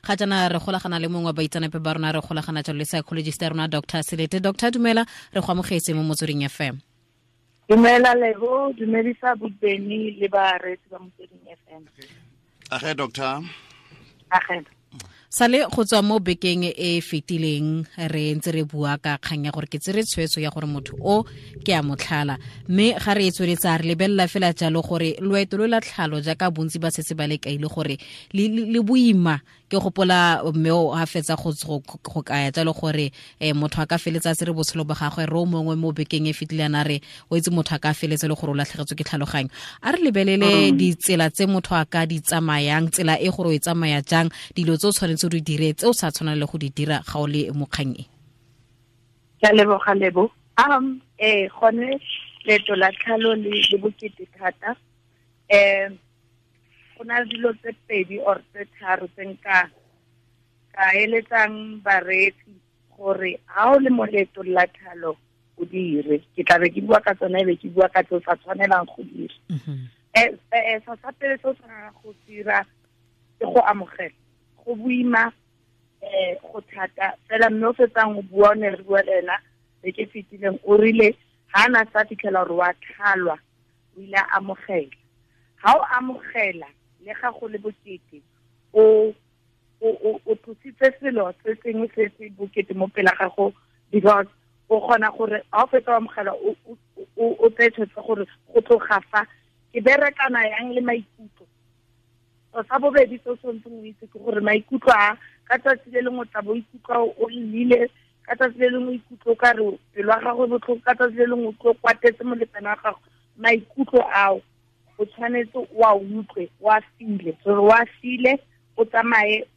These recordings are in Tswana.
Ga jaana re golagana le mongwe wa baitseanape ba rona, re golagana jalo le psychologist ya rona Dr. Selete. Dr. dumela, re go amogetse mo Motsweding FM. Dumela Lebo, dumedisa Bobeni le bareetsi ba Motsweding FM. Age doctor. Age. Sale go tswa mo bekeng e e fetileng re ntse re bua ka kgang ya gore ke tsere tshwetso ya gore motho o ke a motlhala, mme ga re e tsweletsa re lebelela fela jalo gore loeto lo la tlhalo jaaka bontsi ba setse ba le kaile gore le boima. Ke gopola mme o a fetsa go kaya jalo gore motho a ka feletsa se re botshelo ba gagwe re o mongwe mo bekeng e fetileng a re o itse motho a ka feletsa le gore o latlhegetswe ke tlhaloganyo. A re lebelele ditsela tse motho a ka di tsamayang, tsela e gore o e tsamaya jang, dilo tse o tshwanetse o di dire tse o sa tshwanang le go di dira ga o le mo kgang e. Ke a leboga Lebo. Gone leeto la tlhalo le bokete thata. Go na le dilo tse pedi or tse tharo tse nka ka eletsang bareetsi gore ha o le mo leetong la tlhalo o dire. Ke tla be ke bua ka tsona, e be ke bua ka tse o sa tshwanelang go dira. Sa pele se o tshwanelang go dira ke go amogela. Go boima, go thata fela, mme o fetsang o bua, o ne re bua le ena beke e fetileng, o rile ha na sa fitlhela gore wa tlhalwa, o ile a amogela. Ha o amogela le ga go le bokete, o tlositse selo se sengwe se se bokete mo pela gago, because o kgona gore ha o fetsa o amogela o tseye tshwetso gore go tloga fa ke berekana yang le maikutlo. Sa bobedi se o tshwanetseng o itse ke gore maikutlo a ka tsatsi le lengwe o tla bo ikutlwa o llile, ka tsatsi le lengwe o ikutlwa o ka re pelo ya gago e botlhoko, ka tsatsi le lengwe o utlwa o kwatetse molekane wa gago. Maikutlo ao o tshwanetse o a utlwe, o a file, gore o a file, o tsamaye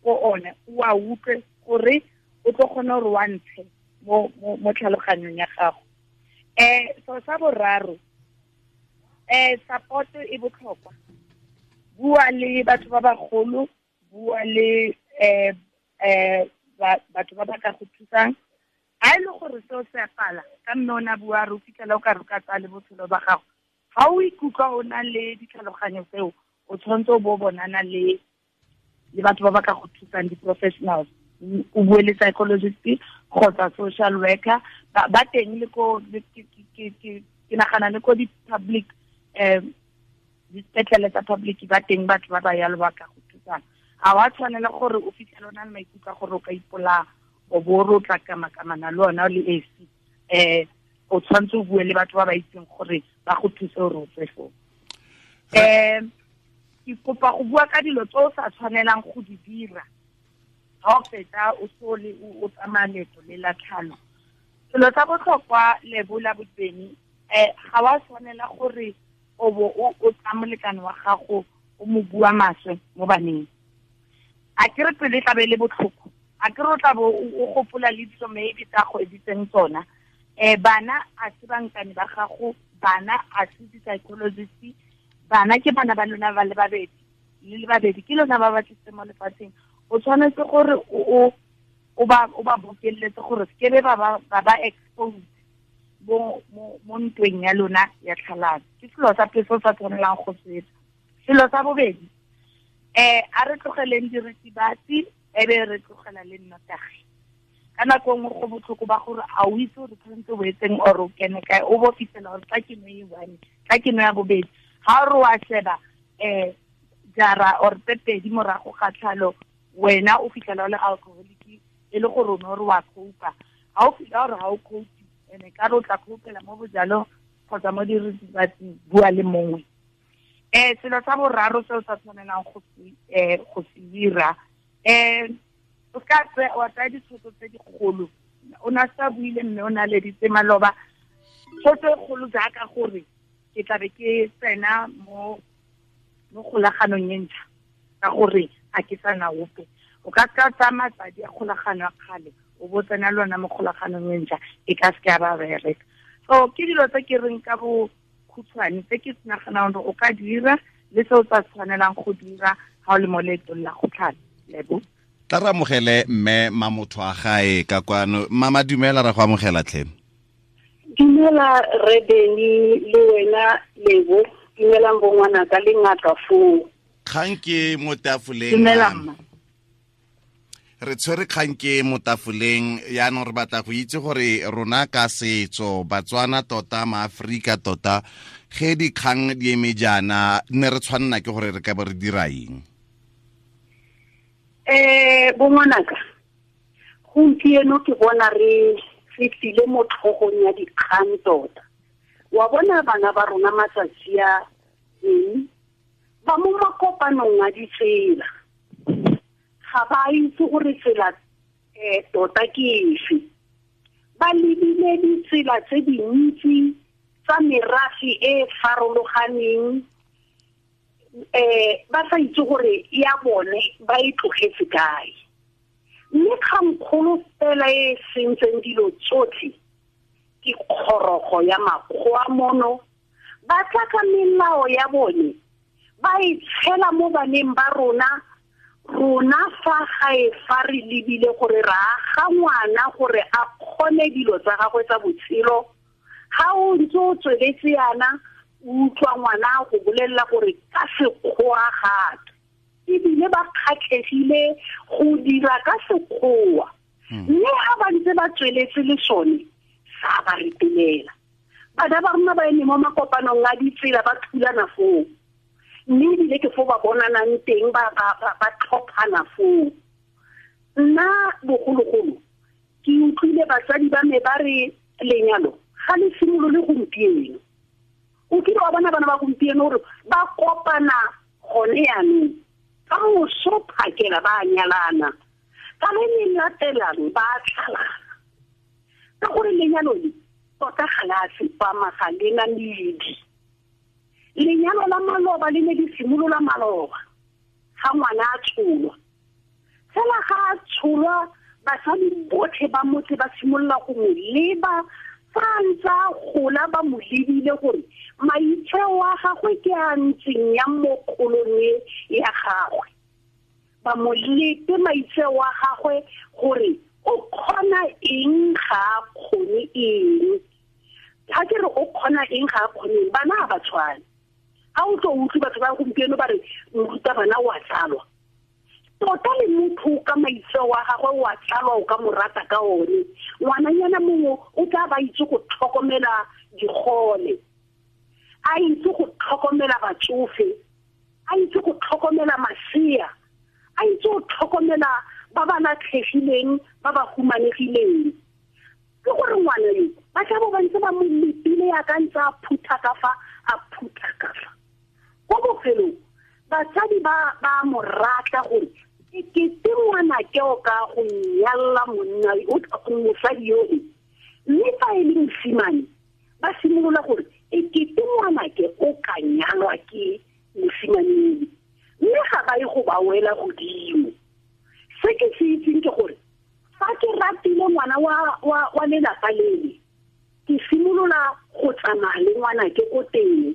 ko one, o a utlwe gore o tlo kgona gore o a ntshe mo tlhaloganyong ya gago. So sa boraro, support e botlhokwa. Bua le batho ba bagolo, bua le batho ba ba ka go thusang. Ha e le gore seo se a pala, ka mme o ne a bua re o fitlhela o ka re o ka tsaya le botshelo ba gago. Ha o ikutlwa o na le ditlhaloganyo tseo, o tshwanetse o bo bonana le batho ba ba ka go thusang, di-professionals. O bue le psychologist kgotsa social worker. Ba teng le ko, ke nagana le ko di-public, dipetlele tsa public ba teng batho ba ba yalo ba ka go thusang. Ha wa tshwanela gore o fitlhele o na le maikutlo a gore o ka ipolaya, o bo o re o tla kamakamana le ona o le esi. O tshwanetse o bue le batho ba ba itseng gore ba go thuse gore o tswe foo. Ke kopa go bua ka dilo tse o sa tshwanelang go di dira ha o fetsa o so le o tsamaya leeto le la tlhalo. Selo sa botlhokwa Lebo la Bobeni, ga wa tshwanela gore o bo o tsaya molekane wa gago o mo bua maswe mo baneng. A ke re pele e tla be e le botlhoko, a ke re o tla bo o gopola le dilo maybe tsa go editseng tsona. Bana a se bankane ba gago, bana a se di-psychologist, bana ke bana ba lona ba le babedi, le le babedi ke lona ba ba tlisitseng mo lefatsheng. O tshwanetse gore o ba bokeletse gore se ke be ba ba exposed mo ntweng ya lona ya tlhalano. Ke selo sa pele se o sa tshwanelang go se etsa. Selo sa bobedi, a re tlogeleng diritibatsi, e be re tlogela le nnotagi. Ka nako nngwe go botlhoko ba gore a o itse gore tshwanetse o etseng or o kene kae, o bo fitlhela gore tla ke no e one, tla ke no ya bobedi. Ha o re wa sheba, jara or tse pedi morago ga tlhalo, wena o fitlhela o le alcoholic, e le gore o ne o re wa cope-a. Ha o fitlhela gore ha o cope, ene ka re o tla cope-ela mo bojalong kgotsa mo diritibatsing, bua le mongwe. Selo sa boraro se o sa tshwanelang go se dira, o ka wa tsaya ditshwetso tse dikgolo. O ne a sa buile mme o ne a leditse maloba. Tshwetso e kgolo jaaka gore ke tla be ke tsena mo kgolaganong e ntšha, ka gore a ke sa na ope. O ka ka tsaya matsadi a kgolagano ya kgale, o bo tsena le ona mo kgolaganong e ntšha, e ka seke ya ba bereka. So ke dilo tse ke reng ka bo khutshwane tse ke naganang gore o ka dira le se o sa tshwanelang go dira ha o le mo leetong la go tlhala. Lebo. Tla re amogele mme Mamotho a gae ka kwano. Mama dumela, ra go amogela tlhe. Dumela re Beni le wena Lebo, dumelang bo ngwanaka le ngaka foo. Kgang ke mo tafoleng. Dumela mma. Re tshwere kgang ke mo tafoleng yaanong re batla go itse gore rona ka setso Batswana tota maAforika tota ge dikgang di eme jaana ne re tshwanela ke gore re ka bo re dira eng? Bongwanaka, gompieno ke bona re tlile mo tlhogong ya dikgang tota. Wa bona bana ba rona matsatsi a ba mo makopanong a ditsela, ga ba itse gore tsela tota ke efe. Ba lebile ditsela tse dintsi tsa merafe e farologaneng, ba sa itse gore ya bone ba e tlogetse kae. Mme kgangkgolo fela e sentseng dilo tsotlhe ke kgorogo ya makgowa mono. Ba tla ka melao ya bone, ba e tshela mo baneng ba rona. Rona fa gae fa re lebile gore re aga ngwana gore a kgone dilo tsa gagwe tsa botshelo, ga o ntse o tsweletse yana o utlwa ngwana go bolelela gore ka sekgowa gape, ebile ba kgatlhegile go dira ka sekgowa. Mme ga ba ntse ba tsweletse le sone sa ba retelela. Bana ba rona ba eme mo makopanong a ditsela ba thulana foo, mme ebile ke foo ba bonanang teng, ba tlhophana foo. Nna bogologolo ke utlwile batsadi ba me ba re lenyalo ga le simolole gompieno. O kile wa bona bana ba gompieno gore ba kopana gone yaanong, ka moso phakela ba nyalana, ka le le latelang ba tlhalana. Ka gore lenyalo le tota ga le a tsepama, ga le na medi. Lenyalo la maloba le ne le simolola maloba ga ngwana a tsholwa. Fela ga a tsholwa, basadi botlhe ba motse ba simolola go mo leba fa a ntse a gola, ba mo lebile gore maitseo a gagwe ke a ntseng yang mo kgolong e ya gagwe. Ba mo lepe maitseo a gagwe gore o kgona eng ga a kgone eng. Ga ke re o kgona eng ga a kgone eng, bana ga ba tshwane. Ga o tlo utlwe batho ba gompieno ba re morutabana o a tsalwa. Tota le motho ka maitseo a gagwe o a tsalwa, o ka mo rata ka one. Ngwananyana mongwe o tla ba itse go tlhokomela digole, a itse go tlhokomela batsofe, a itse go tlhokomela masea, a itse go tlhokomela ba ba latlhegileng, ba ba humanegileng. Ke gore ngwana yo ba tla bo ba ntse ba mo lepile ya ka ntse a phutha ka fa, a phutha ka fa. Ko bofelong batsadi ba mo rata gore e kete ngwanake o ka go nyalla monna mosadi yo e. Mme fa e le mosimane ba simolola gore e kete ngwanake o ka nyalwa ke mosimane, mme ga ba ye go ba wela godimo. Se ke se itseng ke gore fa ke ratile ngwana wa lelapa lele, ke simolola go tsamaya le ngwanake ko teng.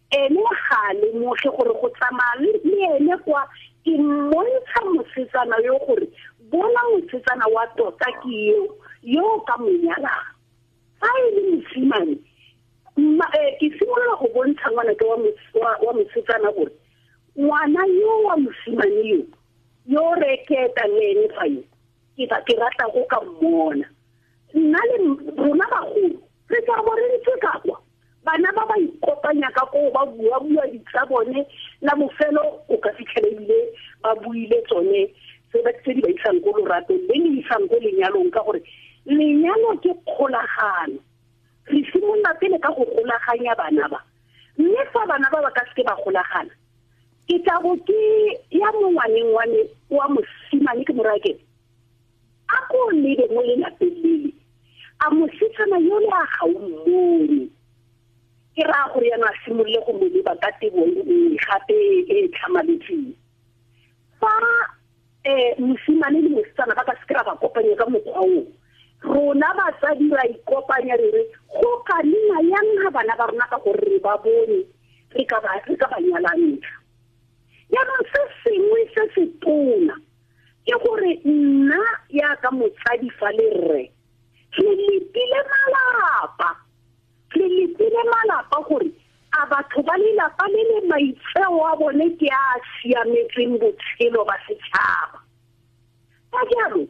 Ene ga a lemoge gore go tsamaya le ene kwa ke mmontsha mosetsana yo gore bona mosetsana wa tota ke eo yo ka mo nyalang. Fa e le mosimane, ke simolola go bontsha ngwanake wa mosetsana gore ngwana yo wa mosimane yo yo reketa le ene fa yo ke rata go ka mmona. Nna le rona bagolo re tla bo re ntse ka kwa, bana ba ba ikopanya ka koo, ba bua-bua ditsa bone, la bofelo o ka fitlhela ebile ba buile tsone tse di ba isang ko loratong le le isang ko lenyalong, ka gore lenyalo ke kgolagano. Re simolola pele ka go golaganya bana ba, mme fa bana ba ba ka seke ba golagana, ke tla bo ke ya mo ngwaneng wa me wa mosimane ke mo raya ke a ko lebe mo lelapeng lele, a mosetsana yole a ga o mmone. Ke raya gore yana a simolole go mo leba ka tebo e nngwe gape e tlhamaletseng. Fa mosimane le mosetsana ba ka seke ra ba kopanya ka mokgwa oo, rona batsadi ra ikopanya re re go ka nna yang ga bana ba rona ka gore re ba bone, re ka ba nyalantsha. Jaanong se sengwe se se tona ke gore nna yaka motsadi fa le rre re lepile malapa, re lepile malapa gore a batho ba lelapa le le maitseo a bone ke a siametseng botshelo ba setšhaba. Ka jalo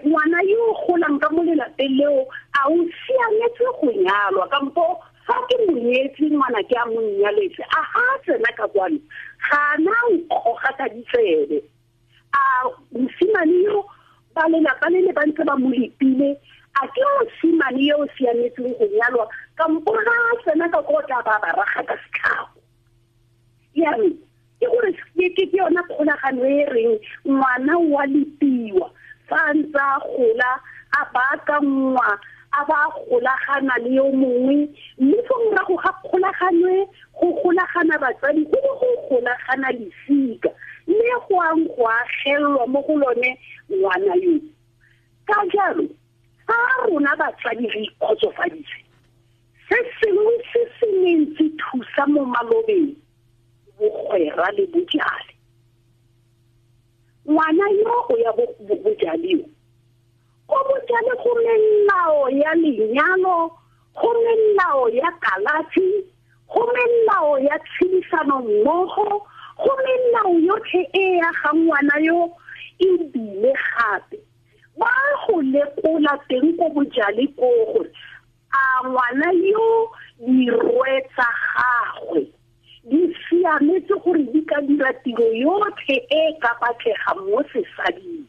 ngwana yo golang ka mo lelapeng leo a o siametse go nyalwa, kampo fa ke monyetse ngwana ke a mo nyaletse, a ga a tsena ka kwano ga na nkgoga ka ditsebe. A mosimane yo ba lelapa le le ba ntse ba mo lepile, a ke mosimane yo o siametseng go nyalwa, kampo ga a tsena ka ko tla ba ba raga ka setlhago. Yaanong ke gore ke yona kgolagano e reng ngwana wa lepiwa fa a ntse a gola, a baakangwa, a ba golagana le yo mongwe, mme fo morago ga kgolagano e go golagana batsadi, go bo go golagana lesika, mme go ang go agelelwa mo go lone ngwana yo. Ka jalo fa rona batsadi re ikgotsofaditse, se sengwe se se neng se thusa mo malobeng, bogwera le bojale. Ngwana yo o ya bojaleo, ko bojale go melao ya lenyalo, go melao ya kalafi, go melao ya tshedisano mmogo, go melao yotlhe e ya ga ngwana yo. Ebile gape ba go lekola teng ko bojale ko gore a ngwana yo dirwe tsa gagwe di siametse gore di ka dira tiro yotlhe e ka batlega mo sesading.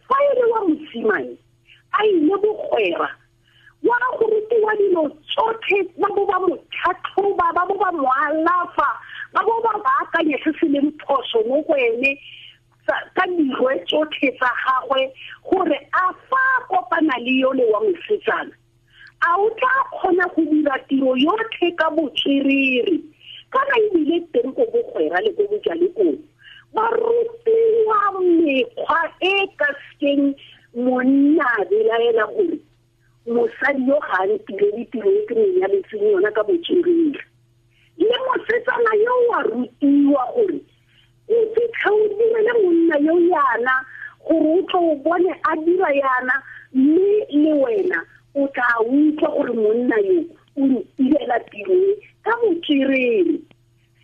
Fa e le wa mosimane a ile bogwera, wa go rutiwa dilo tsotlhe, ba bo ba mo tlhatlhoba, ba bo ba mo alafa, ba bo ba baakanya se se leng phoso mo go ene ka dirwe tsotlhe tsa gagwe, gore a fa kopana le yole wa mosetsana a o tla kgona go dira tiro yotlhe ka botswerere. Kana ebile teng ko bogwera le ko bojale koo ba rutiwa mekgwa e ka sekeng monna a belaela gore mosadi yo ga a ntirele tiro e ke mo nyaletseng yona ka botswerere. Le mosetsana yo wa rutiwa gore o fitlha o direle monna yo yana gore o tlo o bone a dira yana, mme le wena o tla utlwa gore monna yo o ntirela tiro e ka botswerere.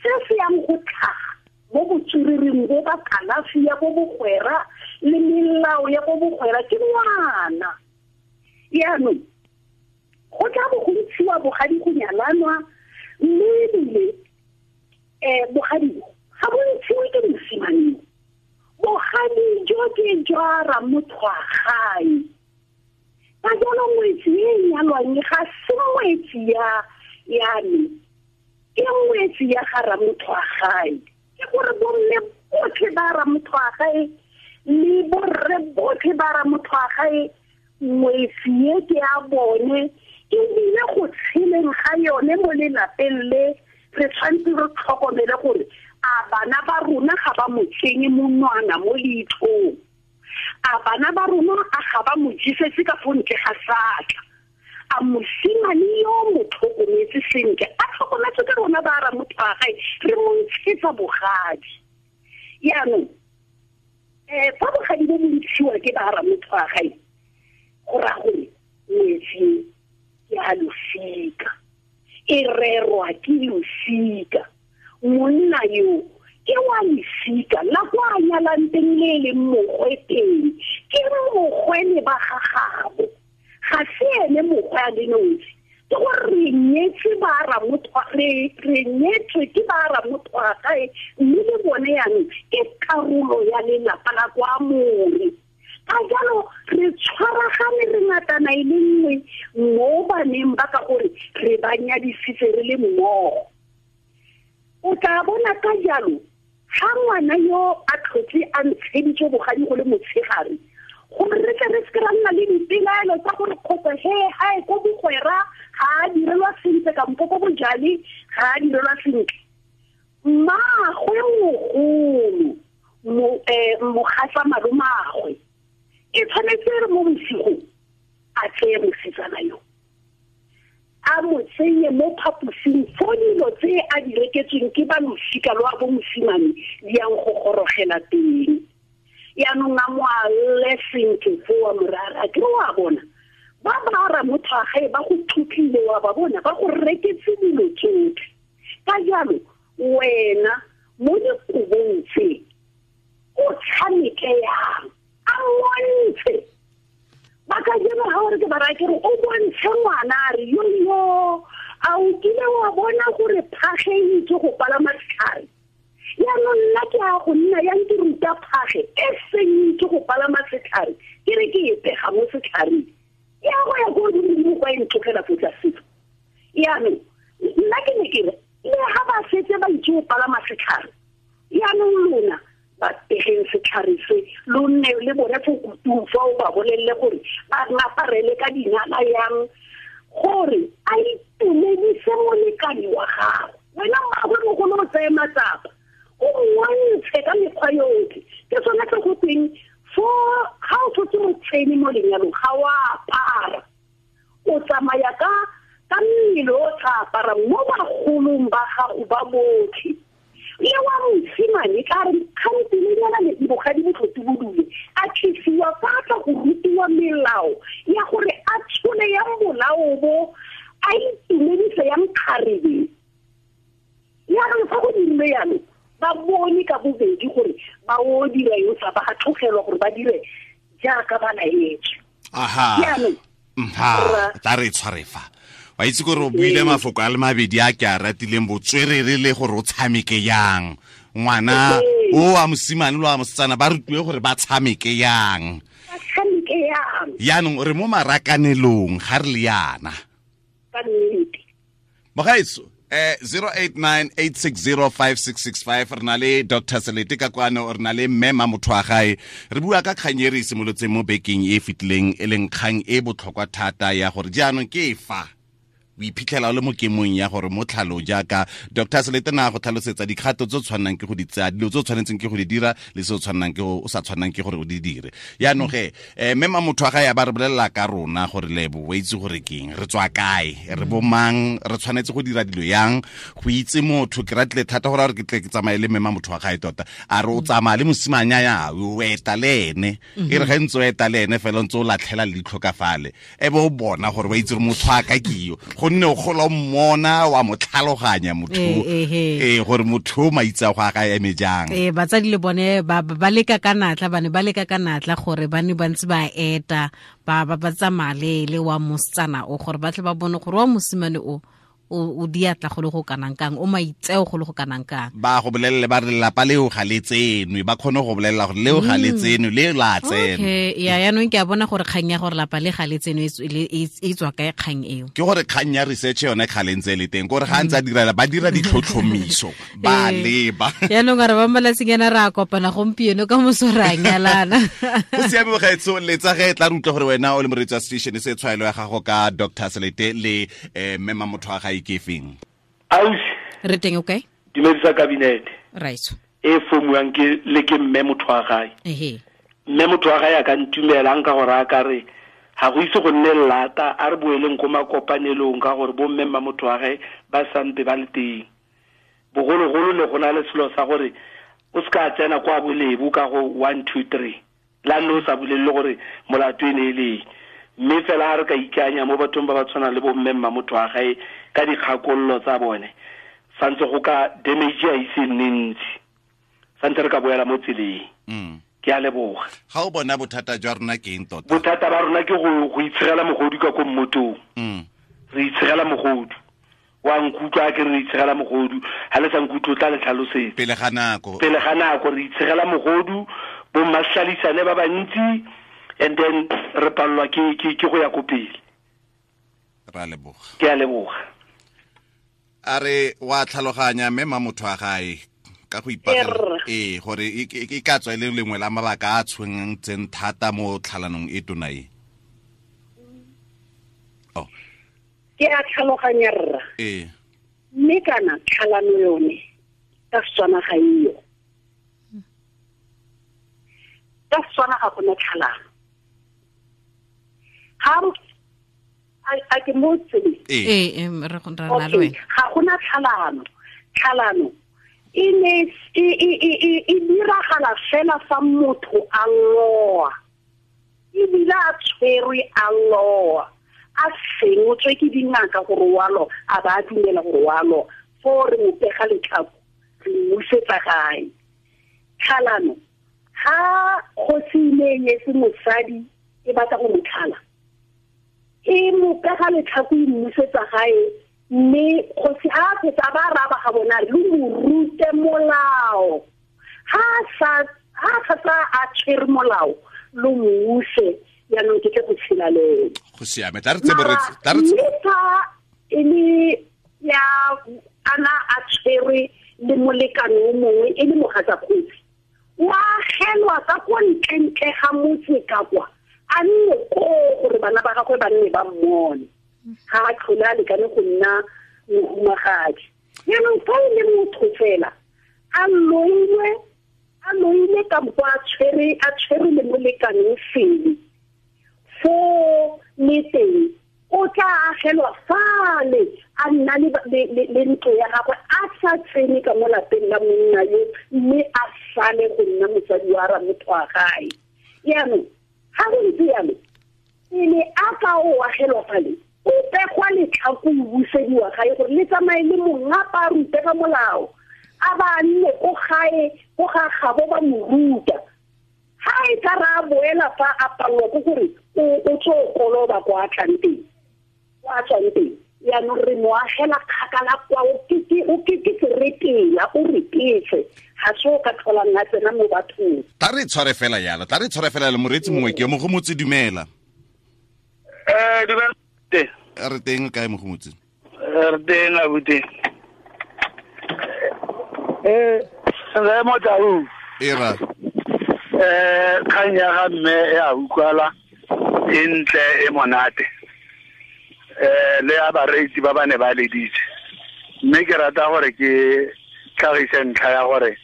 Se se yang go tlhaga mo botswerereng bo ba kalafi ya bo bogwera le melao ya bo bogwera ke ngwana. Yaanong go tla bo go ntshiwa bogadi go nyalanwa, mme ebile bogadi bo ga bo ntshiwe ke mosimane, bogadi jo ke jwa ramotho wa gae. Ka jalo ngwetsi e nyalwang ga se ngwetsi ya me, ke ngwetsi ya ga ramotho wa gae. Ke gore bomme botlhe ba ramotho wa gae le borre botlhe ba ramotho wa gae, ngwetsi e ke ya bone, ebile go tsheleng ga yone mo lelapeng le re tshwanetse re tlhokomele gore a bana ba rona ga ba mo tsenye monwana mo leitlhong, a bana ba rona a ga ba mo jesetse ka fo ntle ga satla, a mosimane yo mo tlhokometse sentle, a tlhokometse ke rona ba ramotho wa gae, re mo ntshetsa bogadi. Yaanong fa bogadi bo bo ntshiwa ke ba ramotho wa gae, go raya gore ngwetsi ke a losika, e rerwa ke losika. Monna yo ke wa losika la kwa a nyalang teng le e leng mogwe teng, ke mogwe le ba gagabo, ga se ene mogwe a le nosi. Ke gore re nyetswe ba ramotho, re nyetswe ke ba ramotho wa gae, mme le bone yaanong ke karolo ya lelapa la kwa more. Ka jalo re tshwaragane re ngatana e le nngwe mo baneng ba, ka gore re ba nyadisitse re le mmogo. O tla bona ka jalo ga ngwana yo a tlhotse a ntsheditswe bogadi go le motshegare, gore re tle re seke ra nna le dipelaelo tsa gore kgotsa he gae ko bogwera ga a direlwa sentle kampo ko bojale ga a direlwa sentle. Mmaagwe mogolo mogatsa malomagwe e tshwanetse re mo bosigong a tseye mosetsana yo a mo tsenye mo phaposing fo dilo tse a di reketsweng ke ba losika lwa bo mosimane di yang go gorogela teng. Yaanong a mo alle sentle fo wa morara, ke wa bona ba ba ramotho wa gae ba go thutlile, wa ba bona ba go reketse dilo tsotlhe. Ka jalo wena mo dikobong tse o tshameke yang? A mmontshe. Ba ka jeno ga ore ke ba raya ke re o bontshe ngwana a re yo yo a o kile wa bona gore phage e itse go palama setlhare. Yaanong nna ke a go nna yang ke ruta phage e seng itse go palama setlhare ke re ke e pega mo setlhareng ya go ya ko godimo kwa e ntlogela fo tlase. Yaanong nna ke ne ke re le ga ba setse ba itse go palama setlhare yaanong lona ba pegeng setlhare se lo nne le bone fo kutung fa o ba bolelele gore ba ngaparele ka dinala yang gore a itumedise molekane wa gago. Wena mmaagwe mogolo o tseye matsapa o mmontshe ka mekgwa yotlhe. Ke sone se go tweng fo ga o tshotse motshene mo lenyalong ga o apara, o tsamaya ka mmele o tla apara mo bagolong ba gago ba botlhe. Le wa mosimane ka re kgantelenyana le bogadi botlhoti bodule a tlisiwa fa a tla go rutiwa melao ya gore a tshole yang bolao bo a itumedise yang kgarebe. Yaanong fa go dirile yalo ba bone ka bobedi gore ba o dira eng sa ba tlogelwa gore ba dire jaaka ba laetswe. Aha. Yaanong tla re tshware fa. Wa itse gore o buile mafoko a le mabedi a ke a ratileng, botswerere le gore o tshameke yang. Ngwana o wa mosimane le wa mosetsana ba rutiwe gore ba tshameke yang. Ba tshameke yang. Yaanong re mo marakanelong ga re le yana. Ka nnete. Mogaetso 0898605665 re na le Dr. Selete ka kwano, re na le mme Mamothoagae. Re bua ka kgang e re e simolotseng mo bekeng e fetileng, e leng kgang e botlhokwa thata ya gore jaanong ke fa o iphitlhela o le mo kemong ya gore mo tlhalo jaaka Dr. Selete na go tlhalosetsa dikgato tse o tshwannang ke go di tsaya, dilo tse o tshwanetseng ke go di dira le se o tshwannang ke o sa tshwannang ke gore o di dire. Yaanong ge mme Mamothoagae a ba re bolelela ka rona gore Lebo o itse gore keng, re tswa kae, re bo mang, re tshwanetse go dira dilo yang, go itse motho. Ke ratile thata gore a re ke tle ke tsamaye le mme Mamothoagae tota, a re o tsamaya le mosimanya ya o eta le ene, e re ge ntse o eta le ene fela o ntse o latlhela leitlho ka fale, e be o bona gore wa itse gore motho a ka ke yo, gonne o gola o mmona wa mo tlhaloganya motho gore motho o maitse a go a ga eme jang. Batsadi le bone ba leka ka natla, ba ne ba leka ka natla gore ba ne ba ntse ba eta ba ba tsamaya le wa mosetsana o gore ba tle ba bone gore wa mosimane o o diatla go le go kanang kang, o maitseo go le go kanang kang. Ba go bolelele ba re lelapa leo ga le tsenwe, ba kgone go bolelela gore leo ga le tsenwe, le la tsenwe. Okay, ya yaanong ke a bona gore kgang ya gore lapa le ga le tsenwe e tswa kae kgang eo. Ke gore kgang ya research yone kgale ntse e le teng, gore ga ntse a direla ba dira ditlhotlhomiso ba leba. Yaanong a re ba malatsing ana re a kopana gompieno ka moso re a nyalana. Go siame mogaetsho, letsa ge tla re utlwa gore wena o le moreetsi wa station se tshwaelo ya gago ka Dr. Selete le mme Mamothoagae ke feng. Ausi. Re teng okay? Dumedisa cabinet. Right. E fomuang ke le ke mme Mothoagae. Ehe. Mme Mothoagae a ka ntumelang ka gore a ka re ga go ise go nne lata, a re boeleng ko makopanelong ka gore bo mme Mamothoagae ba sampe ba le teng. Bogologolo ne go na le selo sa gore o se ka tsena kwa bolebo ka go 1 2 3. La nne o sa bolelele gore molato e ne e le. Mme fela ha re ka ikanya mo bathong ba ba tshwanang le bo mme Mamothoagae ka dikgakololo tsa bone, santse go ka damage a ise nne ntsi, santse re ka boela mo tseleng. Ke a leboga. Ga o bona bothata jwa rona ke eng tota? Bothata ba rona ke go itshegela mogodu ka ko mmotong. Re itshegela mogodu. Wa nkutlwa ke re itshegela mogodu, ha le sa nkutlwe o tla le tlhalosetsa. Pele ga nako. Pele ga nako re itshegela mogodu, bo mmahlalisane ba bantsi, and then re pallwa ke go ya ko pele. Ra leboga. Ke a leboga. A re wa tlhaloganya mme Mamothoagae ka go ipagela gore e ka tswa e le lengwe la mabaka a tshwenyang tseng thata mo tlhalanong e tona e. Oh. Ke a tlhaloganya rra. Mme kana tlhalano yone ka Setswana ga eyo. Ka Setswana ga gona tlhalano. Ga a ke mo tseleng. Re go na le wena. Ga gona tlhalano. Tlhalano e ne e diragala fela fa motho a loa. Ebile a tshwerwe a loa. A sengotswe ke dingaka gore wa loa, a ba dumela gore wa loa. Foo re mo pega letlhako, re mmusetsa gae. Tlhalano Ha kgosi ne nyetse mosadi e batla go mo tlhala, e mo pega letlhako e mmusetsa gae, mme kgosi ha a fetsa ba raba ga bona le mo rute molao. Ha sa a tshwere molao lo muse yaanong ke tle go tshela le ene. Go siame, tla re tsebe re tla re Mme fa e le ya ana a tshwere le molekane o mongwe e le mogatsa kgosi, wa agelwa ka kwa ntlentle ga motse ka kwa, a nne koo gore bana ba gagwe ba nne ba mmone, ga a tlhole a lekane go nna mohumagadi. Jaanong fa e le motho fela a loile kampo a tshwere le molekane o sele, foo le teng o tla agelwa fale a nna le ntlo ya gagwe, a sa tsene ka mo lapeng la monna yo, mme a sale go nna motsadi wa ramotho wa gae. Jaanong ga go ntse jalo, pele a ka o agelwa fale, o pegwa letlhako o busediwa gae gore le tsamaye le mongapa a rute ka molao, a ba nne ko gae ko ga gabo ba mo ruta. Ha e ka ra boela fa a palelwa ke gore o tlo koloba kwa a tlang teng, kwa a tswang teng. Jaanong re mo agela kgakala kwa, o ke seretela, o retetse, ga se o ka tlholang a tsena mo bathong. Tla re tshware fela yalo, tla re tshware fela le moreetsi mongwe ke Mogomotsi, dumela. Dumela. Re teng kae Mogomotsi? Re teng abuti. Re mo tau. Era. Kgang ya ga mme e a utlwala, e ntle, e monate. Le ya bareetsi ba ba ne ba leditse. Mme ke rata gore ke tlhagise ntlha ya gore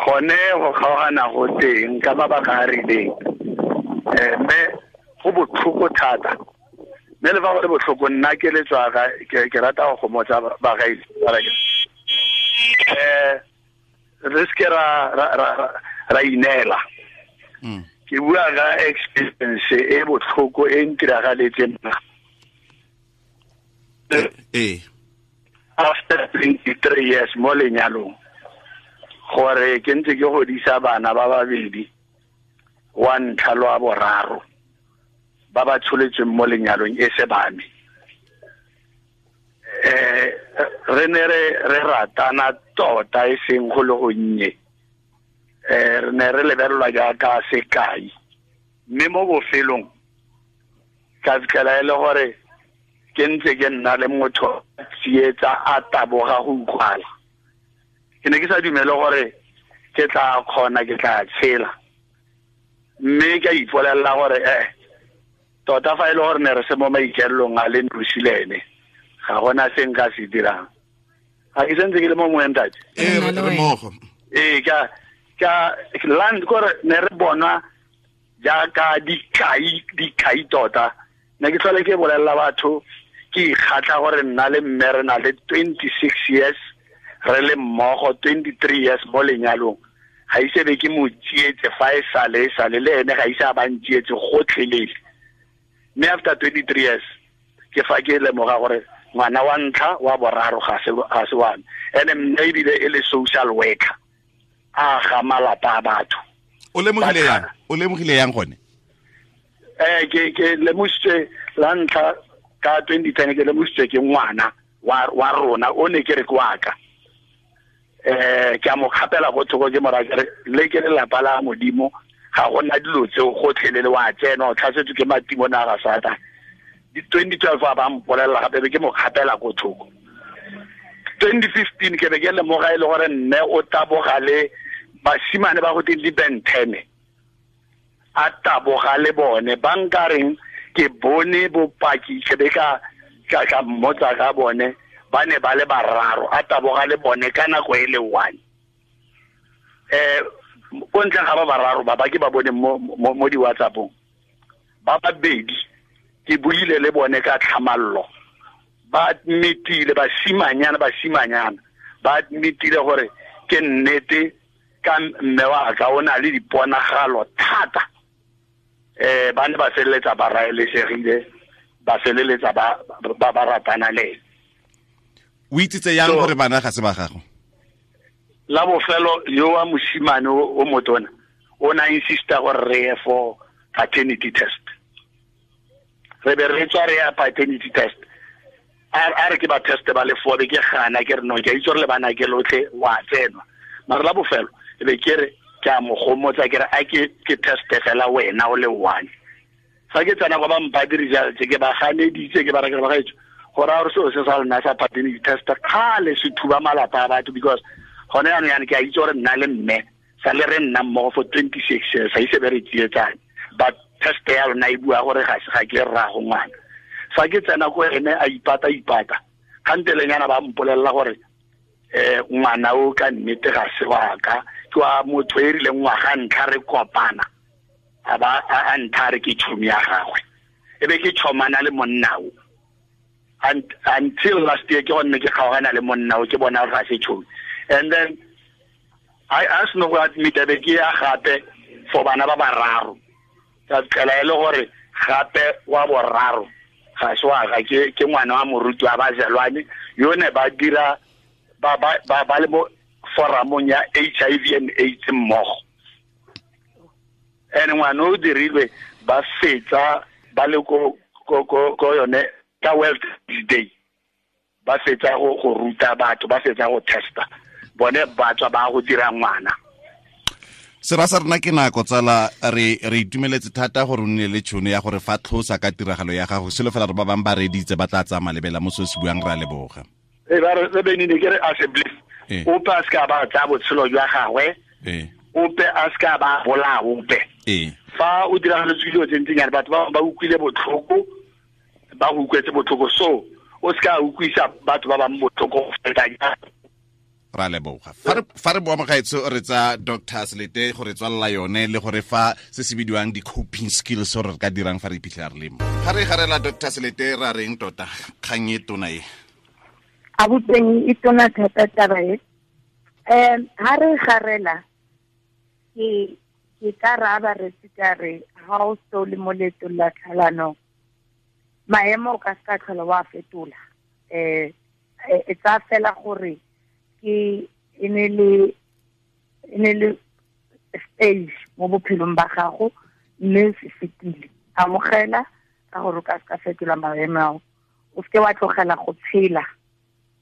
gone go kgaogana go teng ka mabaka a rileng. Mme go botlhoko thata. Mme le fa go le botlhoko, nna ke letswa ke rata go gomotsa bagaetsi. Re seke ra ineela. Ke bua ka experience e botlhoko e ntiragaletseng nna. After 23 years mo lenyalong, gore ke ntse ke godisa bana ba babedi, wa ntlha le wa boraro, ba ba tsholetsweng mo lenyalong e se ba me. Re ne re ratana tota e seng go le gonnye. Re ne re lebelelwa jaaka sekai, mme mo bofelong ka fitlhela e le gore ke ntse ke nna le motho tsietsa a taboga go utlwala. Ke ne ke sa dumele gore ke tla kgona, ke tla tshela, mme ka ipolelela gore tota fa e le gore ne re se mo maikaelelong a le nosi le ene, ga gona se nka se dirang. Ga ke sentse ke le mo moeng ntate. Re mmogo. Ka land gore ne re bona jaaka dikai tota. Ne ke tlhole ke bolelela batho, ke ikgatlha gore nna le mme re na le 26 years re le mmogo, 23 years mo lenyalong. Ga ise be ke mo tsietse fa e sale le ene ga ise a ba ntsietse gotlhelele. Mme after 23 years ke fa ke lemoga gore ngwana wa ntlha wa boraro ga se wa me. Ene mme ebile e le social worker, a ga malapa a batho. O lemogile yang? O lemogile yang gone? Ke lemositswe la ntlha ka 2010, ke lemositswe ke ngwana wa rona o ne ke re ke wa ka. Ke a mo kgapela go thoko, ke mo raya ke re le ke lelapa la Modimo, ga gona dilo tseo gotlhelele, wa tsena o tlhasetswe ke matimone a ga Satane. 2012 a ba mpolelela gape, be ke mo kgapela ko thoko. 2015 ke be ke lemoga e le gore mme o taboga le basimane ba go teng di-bentene, a taboga le bone ba nkareng ke bone bopaki, ke be ka mmotsa ka bone, ba ne ba le bararo, a taboga le bone ka nako e le one. Ko ntleng ga ba bararo ba ke ba bone mo di-WhatsApp-ong, ba babedi ke buile le bone ka tlhamallo, ba admitile, basimanyana ba admitile gore ke nnete ka mme wa ka o na le diponagalo thata. Ba ne ba feleletsa ba raelesegile, ba feleletsa ba ratana le ene. O itsitse yang gore bana ga se ba gago? La bofelo yo wa mosimane o motona O na insista gore re ye for paternity test. Re be re tswa re ya paternity test. A re ke ba test ba le four, be ke gana ke re no, ke a itse gore le bana ke lotlhe wa tsenwa. Mara la bofelo e be ke re ke a mo gomotsa ke re a ke test fela wena o le one. Fa ke tsena kwa ba mpha di-results ke ba ganeditse ke ba re ke ba gaetso gore a gore seo se sa lona sa paternity test kgale se thuba malapa a batho, because gone jaanong yana ke a itse gore nna le mme sa le re nna mmogo for 26 years, ga ise be re tsietsane, but test ya lona e bua gore ga ke rraago ngwana. Fa ke tsena ko ene a ipata kgantelenyana ba mpolelela gore ngwana o ka nnete ga se wa ka, ke wa motho e rileng ngwaga ntlha re kopana a ba a ntha re ke tšhomi ya gagwe, e be ke tšhomana le monna o until last year ke gonne ke kgaogana le monna o, ke bona gore ga se tšhomi. And then I asked no go admit be ke ya gape for bana ba bararo, ka fitlhela e le gore gape wa boraro ga se wa ga ke ngwana wa moruti wa bazelwane yo ne ba dira ba ba ba le mo foramong ya HIV and AIDS mmogo. And ngwana o dirilwe ba fetsa ba le ko yone ka World Day, ba fetsa go ruta batho, ba fetsa go testa bone ba tswa ba go dira ngwana. Sera sa rena ke nako tsala, re itumeletse thata gore o nne le tšhono ya gore fa tlhosa ka tiragalo ya gago, selo fela re ba bangwe ba reditse ba tla tsaya malebela mo se se buang, re a leboga. Ba re benine ke re assemblies ope a se ka ba tsaya botshelo jwa gagwe, ope a se ka ba bolaya ope. Fa o diragaletswe dilo tse ntsinyana, batho ba utlwile botlhoko, ba go utlwetse botlhoko, so o se ka utlwisa batho ba bangwe botlhoko go feta jang. Ra leboga. Fa re boa mogaetsho re tsa Dr. Selete gore tswalela yone le gore fa se se bidiwang di-coping skills gore re ka dirang fa re iphitlhela re le mo. Ga re garela Dr. Selete ra reng tota kgang e tona e? A boteng e tona thata taba e. Ha re garela ke ka raba re ka re ha o so le mo leetong la tlhalano, maemo o ka se ka tlhola wa fetola. E tsa fela gore ke e ne le stage mo bophelong ba gago, mme se fetile. Amogela ka gore o ka se ka fetola maemo ao, o seke wa tlogela go tshela,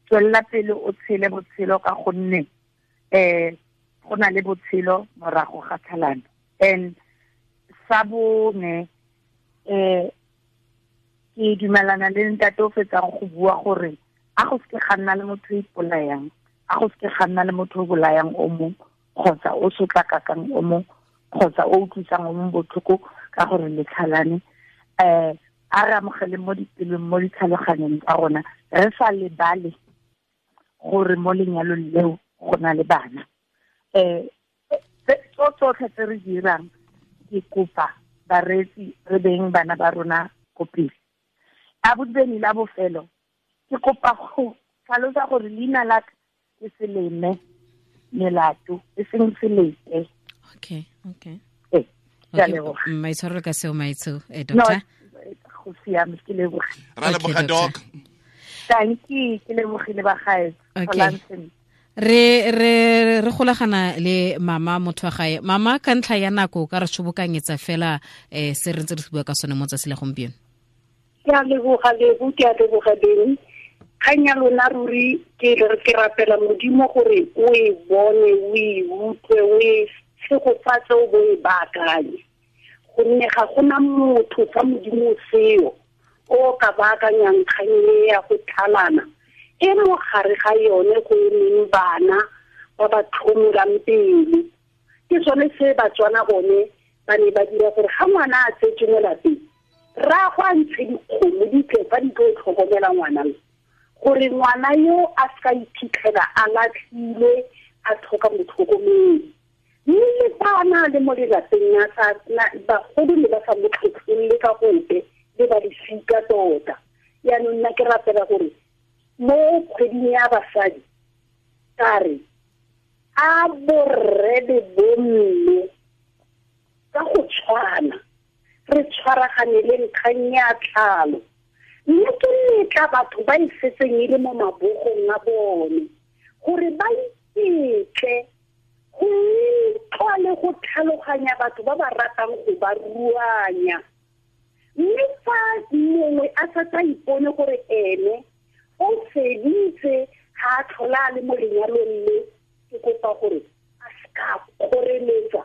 tswelela pele o tshele botshelo ka gonne go na le botshelo morago ga tlhalano. And sa bone ke dumelana le ntate o fetsang go bua gore a go seke ga nna le motho o ipolayang, a go seke ga nna le motho o bolayang o mongwe, kgotsa o sotlakakang o mongwe, kgotsa o utlwisang o mongwe botlhoko ka gore le tlhalane. A re amogele mo dipelong, mo ditlhaloganyong tsa rona, re sa lebale gore mo lenyalong leo go na le bana. Tsotlhe tse re dirang, ke kopa bareetsi re beng bana ba rona ko pele. A bobedi la bofelo, ke kopa go tlhalosa gore leina la ka ke Seleme Melato, e seng Selete. Okay. Maitshwarelo ka seo, maitsho, doctor. Go siame, ke leboga. Ra leboga, doc. Thank you, ke lebogile ba gae. Okay. Re golagana le mama motho wa gae. Mama, ka ntlha ya nako ka re tshobokanyetsa fela se re ntse re se bua ka sone mo tsatsi la gompieno. Ke a leboga Lebo, ke a leboga Beni. Kgang ya lona ruri ke rapela Modimo gore o e bone, o e utlwe, o e tshegofatse, o bo e baakanye. Gonne ga gona motho fa Modimo seo o ka baakanyang kgang e ya go tlhalana, e mo gare ga yone go emeng bana ba ba tlhomolang pele. Ke sone se Batswana bone ba ne ba dira gore ga ngwana a tsetswe mo lapeng, rraagwe a ntshe dikgomo di tle fa di tlo tlhokomela ngwana yo, gore ngwana yo a se ka iphitlhela a latlhilwe, a tlhoka motlhokomedi. Mme le fa a na le mo lelapeng bagolo ne ba sa mo tlhotlholle ka gope, le ba lesika tota. Yaanong nna ke rapela gore mo kgweding ya basadi ka re a borre le bomme ka go tshwana re tshwaraganeleng kgang ya tlhalo, mme ke letla batho ba e setseng e le mo mabogong a bone gore ba iketle go utlwa le go tlhaloganya kgaoganya batho ba ba ratang go ba ruanya. Mme fa mongwe a sa tsa ipone gore ene o feditse ga a tlhola a le mo lenyalong le, ke kopa gore a seka kgoreletsa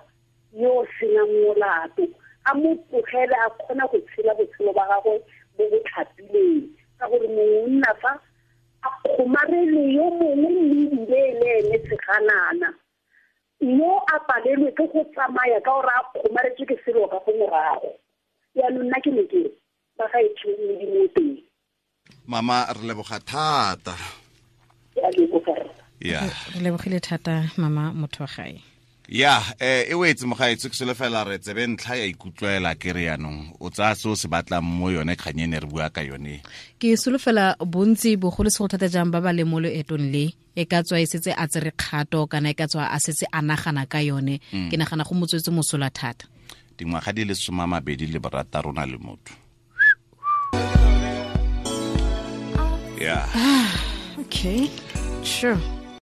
yo o senang molato, a mo tlogele a kgona go tshela botshelo ba gagwe bo bo tlhapileng, ka gore mongwe o nna fa a kgomarele yo mongwe mme ebile e le ene seganana, yo a palelwe ke go tsamaya ka gore a kgomaretswe ke selo ka go morago. Yaanong nna ke ne ke ba gaetsho Modimo o teng. Mama, re leboga thata. Ke a leboga rra. Ya. Re lebogile thata mama motho wa gae. Ya, e wetse mogaetsho, ke solofela re tsebe ntlha ya ikutlwela ke re yanong o tsaya se o se batlang mo yone kgang e ne re bua ka yone. Ke solofela bontsi bogolosegolo thata jang ba ba leng mo loetong le, e ka tswa e setse a tsere kgato kana e ka tswa a setse a nagana ka yone. Ke nagana go motswetse mosola thata. Dingwaga di le 26 na le motho. Yeah. Okay. Sure.